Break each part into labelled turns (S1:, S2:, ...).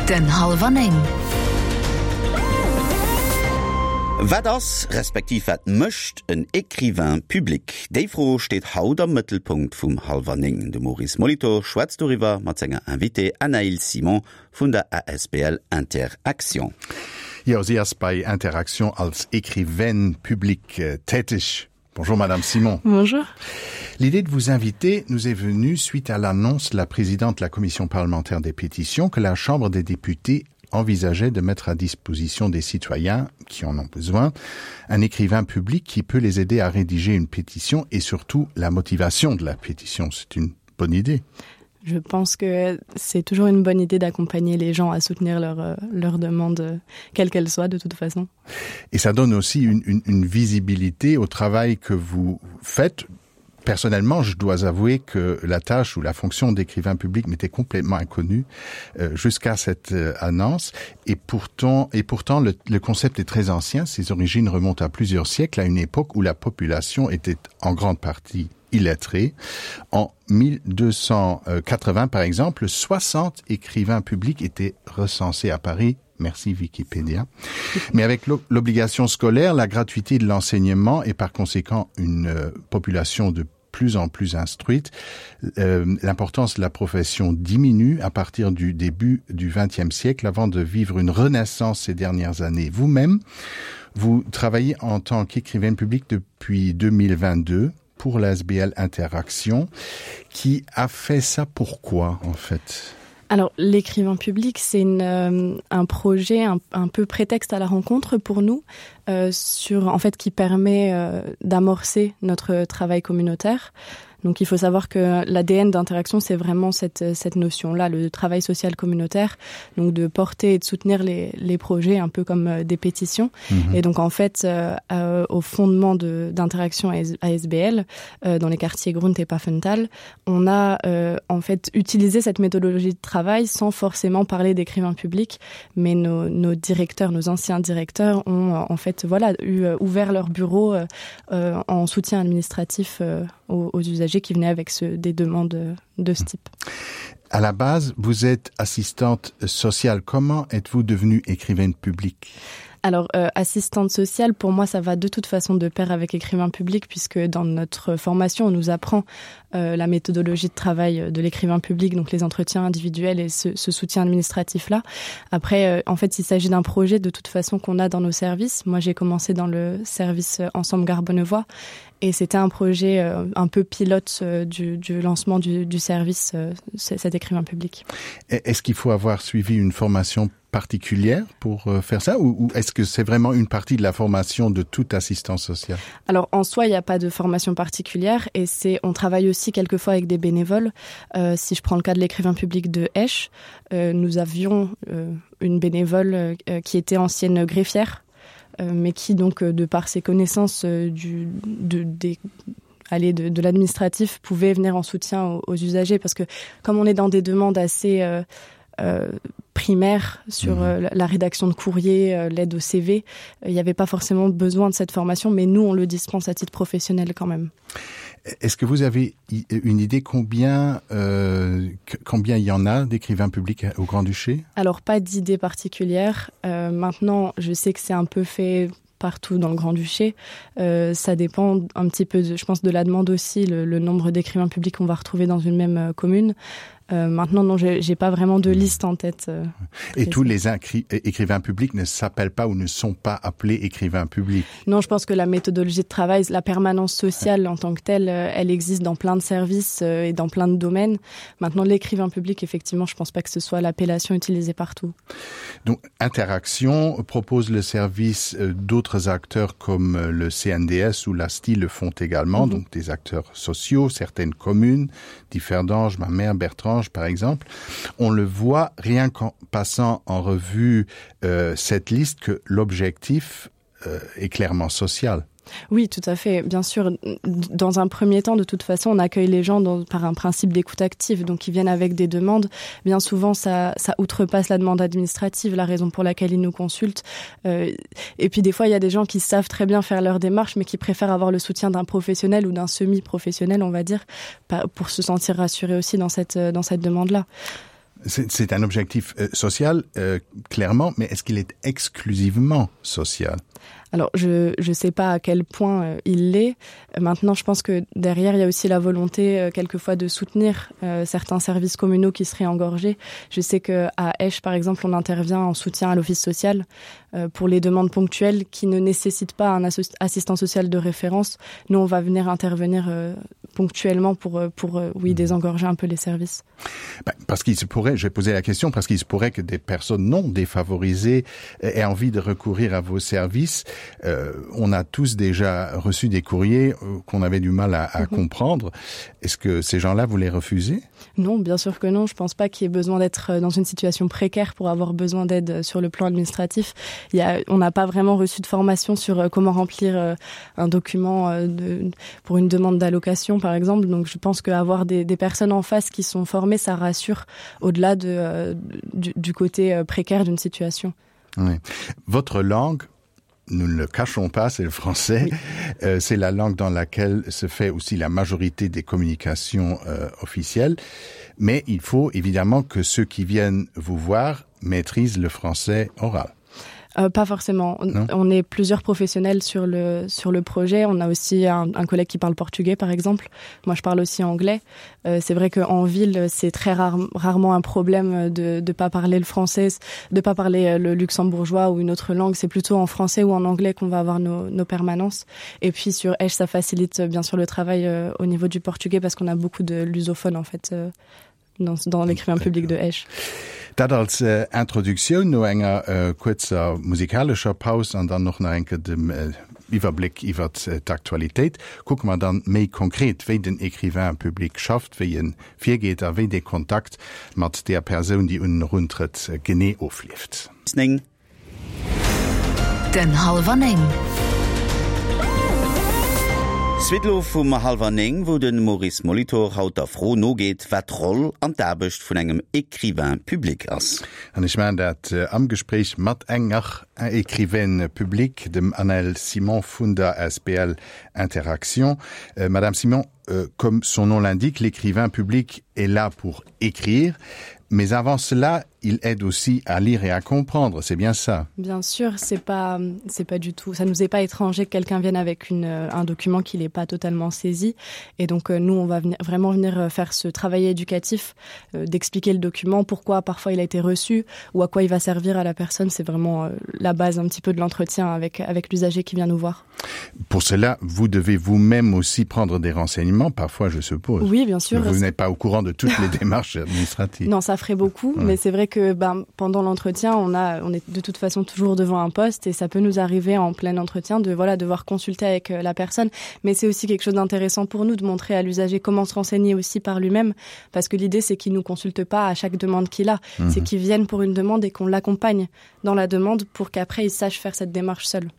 S1: Den Hallwer 9.
S2: Wat ass, respektiv wat mécht en Écrivain public? Déi Fro steet haut am Mëttelpunkt vum Hallwer 9. De Maurice Molitor schwätzt doriwwer mat senger Invitée Anaïl Simon vun der asbl Inter-Actions.
S3: Jo, si ass bei Inter-Actions als Écrivaine publique täteg. Bonjour Madame Simon.
S4: Bonjour.
S3: L'idée de vous inviter nous est venue suite à l'annonce de la présidente de la commission parlementaire des pétitions que la Chambre des députés envisageait de mettre à disposition des citoyens qui en ont besoin un écrivain public qui peut les aider à rédiger une pétition et surtout la motivation de la pétition. C'est une bonne idée.
S4: Je pense que c'est toujours une bonne idée d'accompagner les gens à soutenir leur, euh, leur demande, euh, quelle qu'elle soit de toute façon.
S3: Et ça donne aussi une, une, une visibilité au travail que vous faites. Personnellement, je dois avouer que la tâche ou la fonction d'écrivain public m'était complètement inconnue euh, jusqu'à cette euh, annonce. Et pourtant, et pourtant le, le concept est très ancien. Ses origines remontent à plusieurs siècles, à une époque où la population était en grande partie illettrée. En 1280, par exemple, 60 écrivains publics étaient recensés à Paris. Merci Wikipédia. Mais avec l'obligation scolaire, la gratuité de l'enseignement et par conséquent une euh, population de plus en plus instruite, euh, l'importance de la profession diminue à partir du début du XXe siècle avant de vivre une renaissance ces dernières années. Vous-même, vous travaillez en tant qu'écrivaine publique depuis 2022 pour l'SBL Interaction qui a fait ça pourquoi en fait
S4: Alors l'écrivain public c'est euh, un projet un, un peu prétexte à la rencontre pour nous euh, sur en fait qui permet euh, d'amorcer notre travail communautaire. Donc il faut savoir que l'ADN d'interaction c'est vraiment cette, cette notion là le travail social communautaire donc de porter et de soutenir les, les projets un peu comme euh, des pétitions mmh. et donc en fait euh, euh, au fondement d'interaction ASBL euh, dans les quartiers Grunt et Pafental on a euh, en fait utilisé cette méthodologie de travail sans forcément parler d'écrivains publics mais nos, nos directeurs nos anciens directeurs ont euh, en fait voilà eu euh, ouvert leur bureau euh, euh, en soutien administratif euh, aux, aux usagers qui venaient avec ce, des demandes de ce type.
S3: À la base, vous êtes assistante sociale. Comment êtes-vous devenue écrivaine publique?
S4: Alors euh, assistante sociale, pour moi, ça va de toute façon de pair avec écrivain public puisque dans notre formation, on nous apprend euh, la méthodologie de travail de l'écrivain public, donc les entretiens individuels et ce, ce soutien administratif là. Après, euh, en fait, il s'agit d'un projet de toute façon qu'on a dans nos services. Moi, j'ai commencé dans le service euh, Ensemble Garbonnevoie et c'était un projet euh, un peu pilote euh, du, du lancement du, du service euh, cet écrivain public.
S3: Est-ce qu'il faut avoir suivi une formation particulière pour euh, faire ça ou, ou est-ce que c'est vraiment une partie de la formation de toute assistance sociale
S4: Alors en soi, il n'y a pas de formation particulière et c'est on travaille aussi quelquefois avec des bénévoles. Euh, si je prends le cas de l'écrivain public de Esch, euh, nous avions euh, une bénévole euh, qui était ancienne greffière euh, mais qui donc euh, de par ses connaissances euh, du de, des aller de, de l'administratif pouvait venir en soutien aux, aux usagers parce que comme on est dans des demandes assez euh, euh, primaire sur mmh. euh, la rédaction de courrier, euh, l'aide au CV, euh, il n'y avait pas forcément besoin de cette formation, mais nous on le dispense à titre professionnel quand même.
S3: Est-ce que vous avez une idée combien euh, combien il y en a d'écrivains publics au Grand-Duché
S4: Alors pas d'idée particulière. Euh, maintenant, je sais que c'est un peu fait partout dans le Grand-Duché. Euh, ça dépend un petit peu, de, je pense, de la demande aussi, le, le nombre d'écrivains publics qu'on va retrouver dans une même euh, commune. Euh, maintenant, non, j'ai pas vraiment de liste en tête. Euh,
S3: Et tous les écrivains publics ne s'appellent pas ou ne sont pas appelés écrivains publics.
S4: Non, je pense que la méthodologie de travail, la permanence sociale en tant que telle, euh, elle existe dans plein de services euh, et dans plein de domaines. Maintenant, l'écrivain public, effectivement, je pense pas que ce soit l'appellation utilisée partout.
S3: Donc, Interaction propose le service euh, d'autres acteurs comme le CNDS ou l'ASTI le font également, mm -hmm. donc des acteurs sociaux, certaines communes, Differdange, ma mère Bertrange par exemple. On le voit rien qu'en passant en revue euh, cette liste que l'objectif euh, est clairement social.
S4: Oui, tout à fait. Bien sûr, dans un premier temps, de toute façon, on accueille les gens dans, par un principe d'écoute active, donc ils viennent avec des demandes. Bien souvent, ça, ça outrepasse la demande administrative, la raison pour laquelle ils nous consultent. Euh, et puis des fois, il y a des gens qui savent très bien faire leur démarche, mais qui préfèrent avoir le soutien d'un professionnel ou d'un semi-professionnel, on va dire, pour se sentir rassuré aussi dans cette, dans cette demande-là.
S3: C'est un objectif euh, social euh, clairement, mais est-ce qu'il est exclusivement social?
S4: Alors je je sais pas à quel point euh, il l'est. Maintenant je pense que derrière il y a aussi la volonté euh, quelquefois de soutenir euh, certains services communaux qui seraient engorgés. Je sais que à Esch par exemple on intervient en soutien à l'office social euh, pour les demandes ponctuelles qui ne nécessitent pas un assistant social de référence. Nous on va venir intervenir euh, ponctuellement pour, euh, pour euh, oui mmh. désengorger un peu les services.
S3: Ben, parce qu'il se pourrait j'ai posé la question parce qu'il se pourrait que des personnes non défavorisées aient envie de recourir à vos services. Euh, on a tous déjà reçu des courriers euh, qu'on avait du mal à, à mm -hmm. comprendre. Est-ce que ces gens-là vous les refusez
S4: Non, bien sûr que non. Je pense pas qu'il y ait besoin d'être euh, dans une situation précaire pour avoir besoin d'aide euh, sur le plan administratif. Il y a, on n'a pas vraiment reçu de formation sur euh, comment remplir un document de, pour une demande d'allocation par exemple. Donc je pense qu'avoir des, des personnes en face qui sont formées, ça rassure au-delà de, du, du côté précaire d'une situation.
S3: Oui. Votre langue nous ne le cachons pas, c'est le français. Oui. Euh, c'est la langue dans laquelle se fait aussi la majorité des communications euh, officielles. Mais il faut évidemment que ceux qui viennent vous voir maîtrisent le français oral.
S4: Euh, pas forcément. On, on est plusieurs professionnels sur le, sur le projet. On a aussi un, un collègue qui parle portugais, par exemple. Moi, je parle aussi anglais. Euh, c'est vrai qu'en ville, c'est très rare, rarement un problème de ne pas parler le français, de pas parler euh, le luxembourgeois ou une autre langue. C'est plutôt en français ou en anglais qu'on va avoir nos, nos permanences. Et puis sur Esch, ça facilite euh, bien sûr le travail euh, au niveau du portugais parce qu'on a beaucoup de lusophones en fait euh, dans, dans l'écrivain public de Esch.
S3: Dat als äh, Introduktioun no enger äh, kuerzer musikalescher Paus an dann och nach eng Kéier dem äh, Iwwerbléck iwwer äh, d'Aktualitéit. Kucke mer dann méi konkret, wéi den Écrivain public schafft, wéi en virgeet a wéi dee Kontakt mat där Persoun, déi un en eruntrëtt, genee ofleeft.
S2: 9.
S1: Den Hallwer 9.
S2: Suite elo vum Hallwer 9, wou de Maurice Molitor haut der Fro nogeet, wat d'Roll an d'Aarbecht vun engem Écrivain public ass.
S3: An ech maachen dat am Gespréich mat enger Écrivaine publique, dem Anaëlle Simon vun der asbl Interaction. Madame Simon, comme son nom l'indique, l'écrivain public est là pour écrire, mais avant cela, il aide aussi à lire et à comprendre, c'est bien ça.
S4: Bien sûr, c'est pas c'est pas du tout ça nous est pas étranger que quelqu'un vienne avec une euh, un document qu'il n'est pas totalement saisi et donc euh, nous on va venir, vraiment venir euh, faire ce travail éducatif euh, d'expliquer le document, pourquoi parfois il a été reçu ou à quoi il va servir à la personne, c'est vraiment euh, la base un petit peu de l'entretien avec avec l'usager qui vient nous voir.
S3: Pour cela, vous devez vous-même aussi prendre des renseignements parfois je suppose.
S4: Oui, bien sûr.
S3: Vous n'êtes pas au courant de toutes les démarches administratives.
S4: Non, ça ferait beaucoup, ouais. mais c'est vrai que ben, pendant l'entretien, on, a, on est de toute façon toujours devant un poste et ça peut nous arriver en plein entretien de voilà, devoir consulter avec euh, la personne. Mais c'est aussi quelque chose d'intéressant pour nous de montrer à l'usager comment se renseigner aussi par lui-même parce que l'idée c'est qu'il nous consulte pas à chaque demande qu'il a. Mmh. C'est qu'il vienne pour une demande et qu'on l'accompagne dans la demande pour qu'après il sache faire cette démarche seul.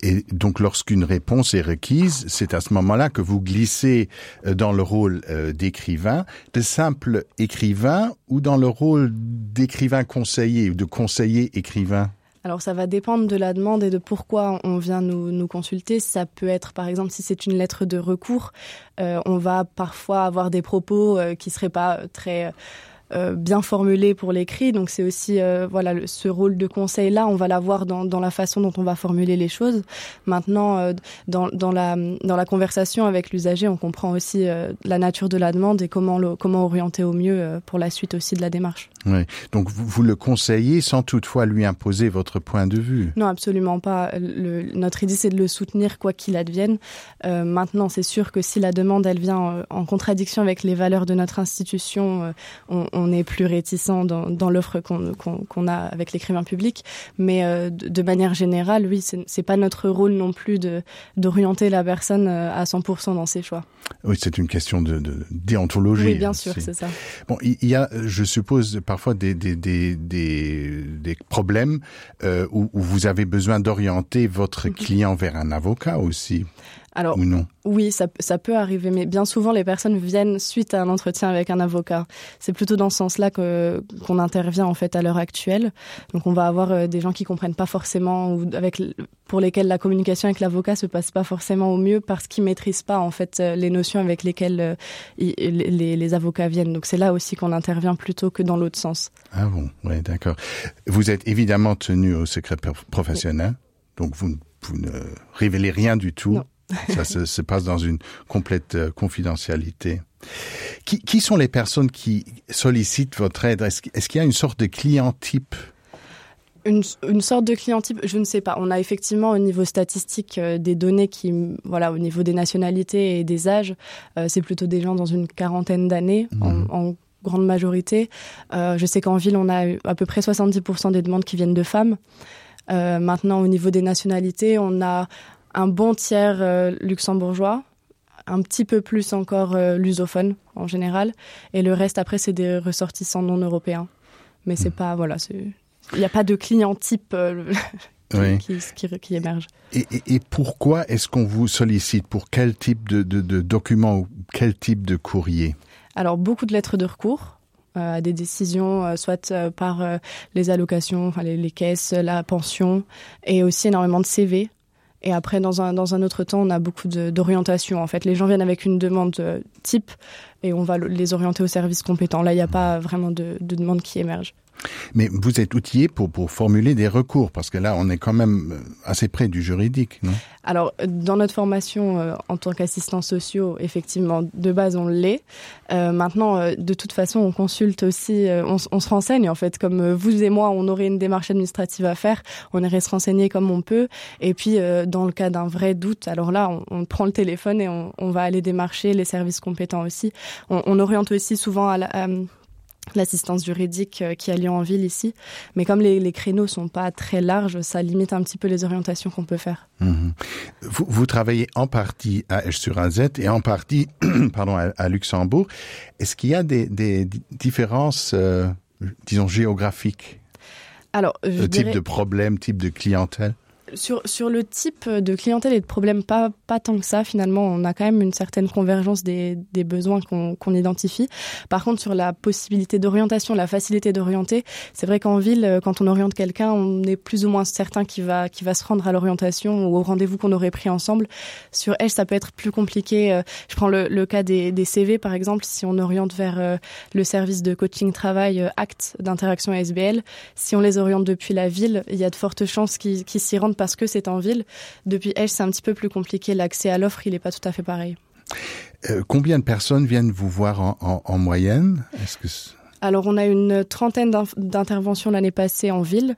S3: Et donc lorsqu'une réponse est requise, c'est à ce moment-là que vous glissez euh, dans le rôle euh, d'écrivain, de simple écrivain ou dans le rôle d'écrivain conseiller ou de conseiller écrivain?
S4: Alors ça va dépendre de la demande et de pourquoi on vient nous, nous consulter. Ça peut être par exemple si c'est une lettre de recours, euh, on va parfois avoir des propos euh, qui seraient pas très euh, Euh, bien formulé pour l'écrit donc c'est aussi euh, voilà le, ce rôle de conseil là on va l'avoir dans, dans la façon dont on va formuler les choses maintenant euh, dans, dans la dans la conversation avec l'usager on comprend aussi euh, la nature de la demande et comment le, comment orienter au mieux euh, pour la suite aussi de la démarche
S3: oui. donc vous, vous le conseillez sans toutefois lui imposer votre point de vue
S4: non absolument pas le, notre idée c'est de le soutenir quoi qu'il advienne euh, maintenant c'est sûr que si la demande elle vient euh, en contradiction avec les valeurs de notre institution euh, on, on est plus réticent dans, dans l'offre qu'on qu qu a avec l'écrivain public mais euh, de, de manière générale oui c'est pas notre rôle non plus de d'orienter la personne euh, à 100% dans ses choix
S3: oui c'est une question de, de déontologie
S4: oui, bien sûr c'est ça
S3: bon il y a je suppose parfois des des des des, des problèmes euh, où, où vous avez besoin d'orienter votre mm -hmm. client vers un avocat aussi.
S4: Alors
S3: ou non
S4: oui, ça, ça peut arriver, mais bien souvent les personnes viennent suite à un entretien avec un avocat. C'est plutôt dans ce sens-là que qu'on intervient en fait à l'heure actuelle. Donc on va avoir euh, des gens qui comprennent pas forcément ou avec pour lesquels la communication avec l'avocat se passe pas forcément au mieux parce qu'ils maîtrisent pas en fait euh, les notions avec lesquelles euh, les, les, les avocats viennent. Donc c'est là aussi qu'on intervient plutôt que dans l'autre sens.
S3: Ah bon, oui, d'accord. Vous êtes évidemment tenu au secret professionnel, oui. donc vous, vous ne révélez rien du tout.
S4: Non.
S3: Ça se, se passe dans une complète euh, confidentialité. Qui, qui sont les personnes qui sollicitent votre aide Est-ce est qu'il y a une sorte de client type
S4: une, une sorte de client type je ne sais pas on a effectivement au niveau statistique euh, des données qui voilà au niveau des nationalités et des âges euh, c'est plutôt des gens dans une quarantaine d'années mmh. en, en grande majorité euh, je sais qu'en ville on a à peu près 70% des demandes qui viennent de femmes euh, maintenant au niveau des nationalités on a un bon tiers euh, luxembourgeois un petit peu plus encore euh, lusophone en général et le reste après c'est des ressortissants non européens mais c'est mmh. pas voilà c'est il n'y a pas de client type euh, qui, oui. qui, qui, qui émerge.
S3: Et, et, et pourquoi est-ce qu'on vous sollicite pour quel type de, de, de document ou quel type de courrier
S4: Alors beaucoup de lettres de recours euh, à des décisions euh, soit euh, par euh, les allocations enfin les, les caisses la pension et aussi énormément de CV et après dans un, dans un autre temps on a beaucoup d'orientation en fait les gens viennent avec une demande euh, type et on va les orienter au service compétent là il n'y a pas vraiment de, de demande qui émerge.
S3: Mais vous êtes outillé pour, pour formuler des recours parce que là on est quand même euh, assez près du juridique non
S4: Alors dans notre formation euh, en tant qu'assistant sociaux effectivement de base on l'est. Euh, maintenant euh, de toute façon on consulte aussi euh, on, on se renseigne en fait comme euh, vous et moi on aurait une démarche administrative à faire, on irait se renseigner comme on peut et puis euh, dans le cas d'un vrai doute alors là on, on prend le téléphone et on, on va aller démarcher les services compétents aussi. On, on oriente aussi souvent à la, à, l'assistance juridique euh, qui a lieu en ville ici mais comme les, les créneaux sont pas très larges ça limite un petit peu les orientations qu'on peut faire
S3: mmh. vous, vous travaillez en partie à Esch sur AZ et en partie pardon à, à Luxembourg est-ce qu'il y a des, des différences euh, disons géographiques
S4: alors
S3: je type dirais... de problème type de clientèle
S4: sur, sur le type de clientèle et de problème pas, pas tant que ça finalement on a quand même une certaine convergence des, des besoins qu'on qu identifie par contre sur la possibilité d'orientation la facilité d'orienter c'est vrai qu'en ville euh, quand on oriente quelqu'un on est plus ou moins certain qui va qui va se rendre à l'orientation ou au rendez-vous qu'on aurait pris ensemble sur elle ça peut être plus compliqué euh, je prends le, le cas des, des CV par exemple si on oriente vers euh, le service de coaching travail acte d'interaction SBL si on les oriente depuis la ville il y a de fortes chances qu'ils qu s'y rendent parce que c'est en ville. Depuis Esch, c'est un petit peu plus compliqué. L'accès à l'offre, il n'est pas tout à fait pareil.
S3: Euh, combien de personnes viennent vous voir en, en, en moyenne Est-ce que
S4: Alors on a une trentaine d'interventions l'année passée en ville.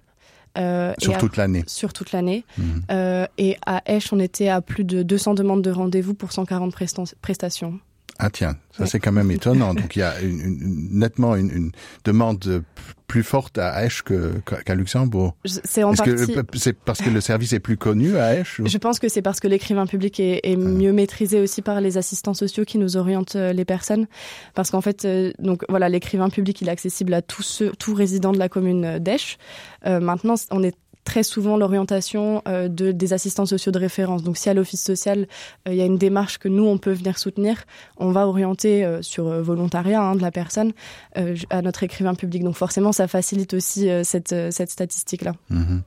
S3: Euh, sur toute l'année
S4: sur toute l'année mmh. euh, et à Esch on était à plus de 200 demandes de rendez-vous pour 140 prestations
S3: Ah tiens, ça oui. c'est quand même étonnant. Donc il y a une, une, nettement une, une demande plus forte à Esch qu'à qu Luxembourg.
S4: C'est en partie...
S3: c'est parce que le service est plus connu à Esch
S4: ou... Je pense que c'est parce que l'écrivain public est, est ah. mieux maîtrisé aussi par les assistants sociaux qui nous orientent euh, les personnes parce qu'en fait euh, donc voilà l'écrivain public il est accessible à tous ceux, tout résidents de la commune d'Esch. Euh, maintenant on est très souvent l'orientation euh, de des assistants sociaux de référence donc si à l'office social euh, il euh, y a une démarche que nous on peut venir soutenir on va orienter euh, sur euh, volontariat hein, de la personne euh, à notre écrivain public donc forcément ça facilite aussi euh, cette, euh, cette statistique là
S3: mmh.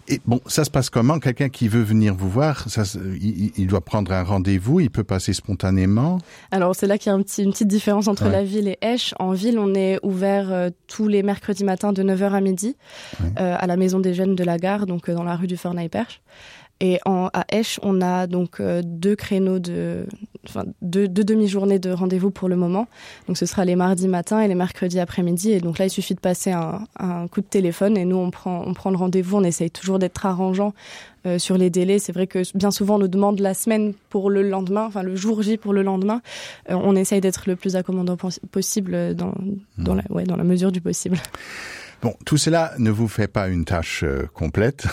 S3: et bon ça se passe comment quelqu'un qui veut venir vous voir ça il, il doit prendre un rendez-vous il peut passer spontanément
S4: alors c'est là qu'il y a un petit une petite différence entre ouais. la ville et Esch en ville on est ouvert euh, tous les mercredis matins de 9h à midi ouais. euh, à la maison des jeunes de la gare donc euh, dans la rue du Fornaille-Perche et en à Esch on a donc euh, deux créneaux de enfin deux, deux demi-journées de rendez-vous pour le moment donc ce sera les mardis matin et les mercredis après-midi et donc là il suffit de passer un, un coup de téléphone et nous on prend on prend le rendez-vous on essaye toujours d'être arrangeant euh, sur les délais c'est vrai que bien souvent on nous demande la semaine pour le lendemain enfin le jour J pour le lendemain euh, on essaye d'être le plus accommodant possible dans mmh. dans la ouais dans la mesure du possible.
S3: Bon, tout cela ne vous fait pas une tâche euh, complète.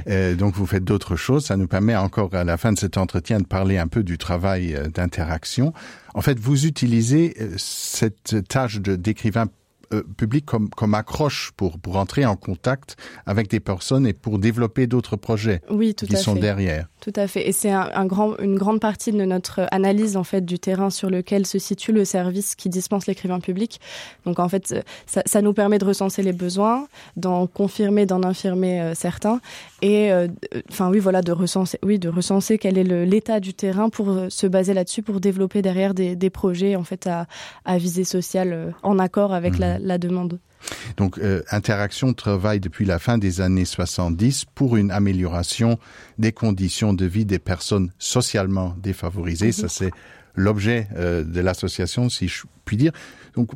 S3: euh, donc vous faites d'autres choses. Ça nous permet encore à la fin de cet entretien de parler un peu du travail euh, d'interaction. En fait, vous utilisez euh, cette tâche d'écrivain euh, public comme, comme accroche pour, pour entrer en contact avec des personnes et pour développer d'autres projets
S4: oui, tout
S3: qui
S4: à
S3: sont
S4: fait.
S3: derrière.
S4: Tout à fait. Et c'est un, un grand, une grande partie de notre analyse en fait du terrain sur lequel se situe le service qui dispense l'écrivain public. Donc en fait, ça, ça nous permet de recenser les besoins, d'en confirmer, d'en infirmer euh, certains et euh, enfin oui voilà de recenser oui de recenser quel est l'état du terrain pour euh, se baser là-dessus pour développer derrière des, des projets en fait à, à visée sociale euh, en accord avec mmh. la, la demande.
S3: Donc euh, Interaction travaille depuis la fin des années 70 pour une amélioration des conditions de vie des personnes socialement défavorisées. Mmh. Ça c'est l'objet euh, de l'association si je puis dire. Donc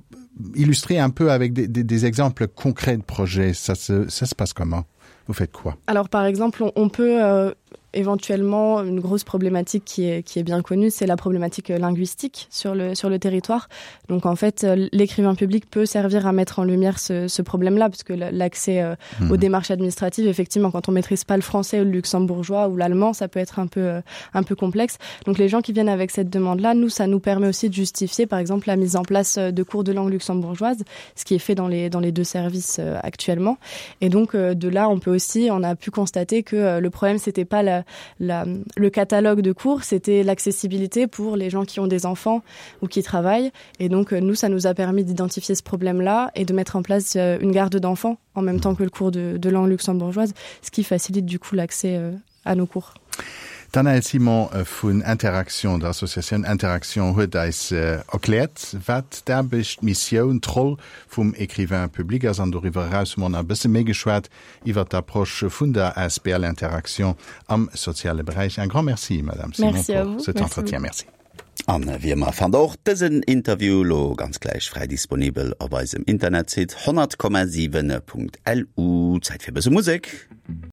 S3: illustrer un peu avec des, des, des exemples concrets de projets, ça se, ça se passe comment Vous faites quoi
S4: Alors par exemple, on, on peut euh, éventuellement une grosse problématique qui est, qui est bien connue, c'est la problématique euh, linguistique sur le, sur le territoire. Donc en fait, euh, l'écrivain public peut servir à mettre en lumière ce, ce problème-là, parce que l'accès euh, mmh. aux démarches administratives, effectivement, quand on maîtrise pas le français ou le luxembourgeois ou l'allemand, ça peut être un peu, un peu complexe. Donc les gens qui viennent avec cette demande-là, nous, ça nous permet aussi de justifier, par exemple, la mise en place de cours de langue luxembourgeoise, ce qui est fait dans les, dans les deux services actuellement. Et donc de là, on peut aussi, on a pu constater que le problème, c'était pas la, la, le catalogue de cours, c'était l'accessibilité pour les gens qui ont des enfants ou qui travaillent. Et donc euh, nous, ça nous a permis d'identifier ce problème-là et de mettre en place euh, une garde d'enfants en même temps que le cours de, de langue luxembourgeoise, ce qui facilite du coup l'accès euh, à nos cours.
S3: D'Anaëlle Simon vun Interaction, der Associatioun Interaction, huet eis erkläert, wat d'Aarbecht, d'Missioun, d'Roll vum Écrivain public ass. An doriwwer eraus hu mer nach e bësse méi geschwat iwwer d'Approche vun der asbl Interaction am soziale Beräich. Un grand merci, Madame Simon,
S4: merci
S3: pour cet entretien. Merci.
S2: An wéi ëmmer fannt der och dësen Interview lo ganz gläich fräi disponibel op eisem Internetsite 100,7.lu. Zäit fir e bësse Musek.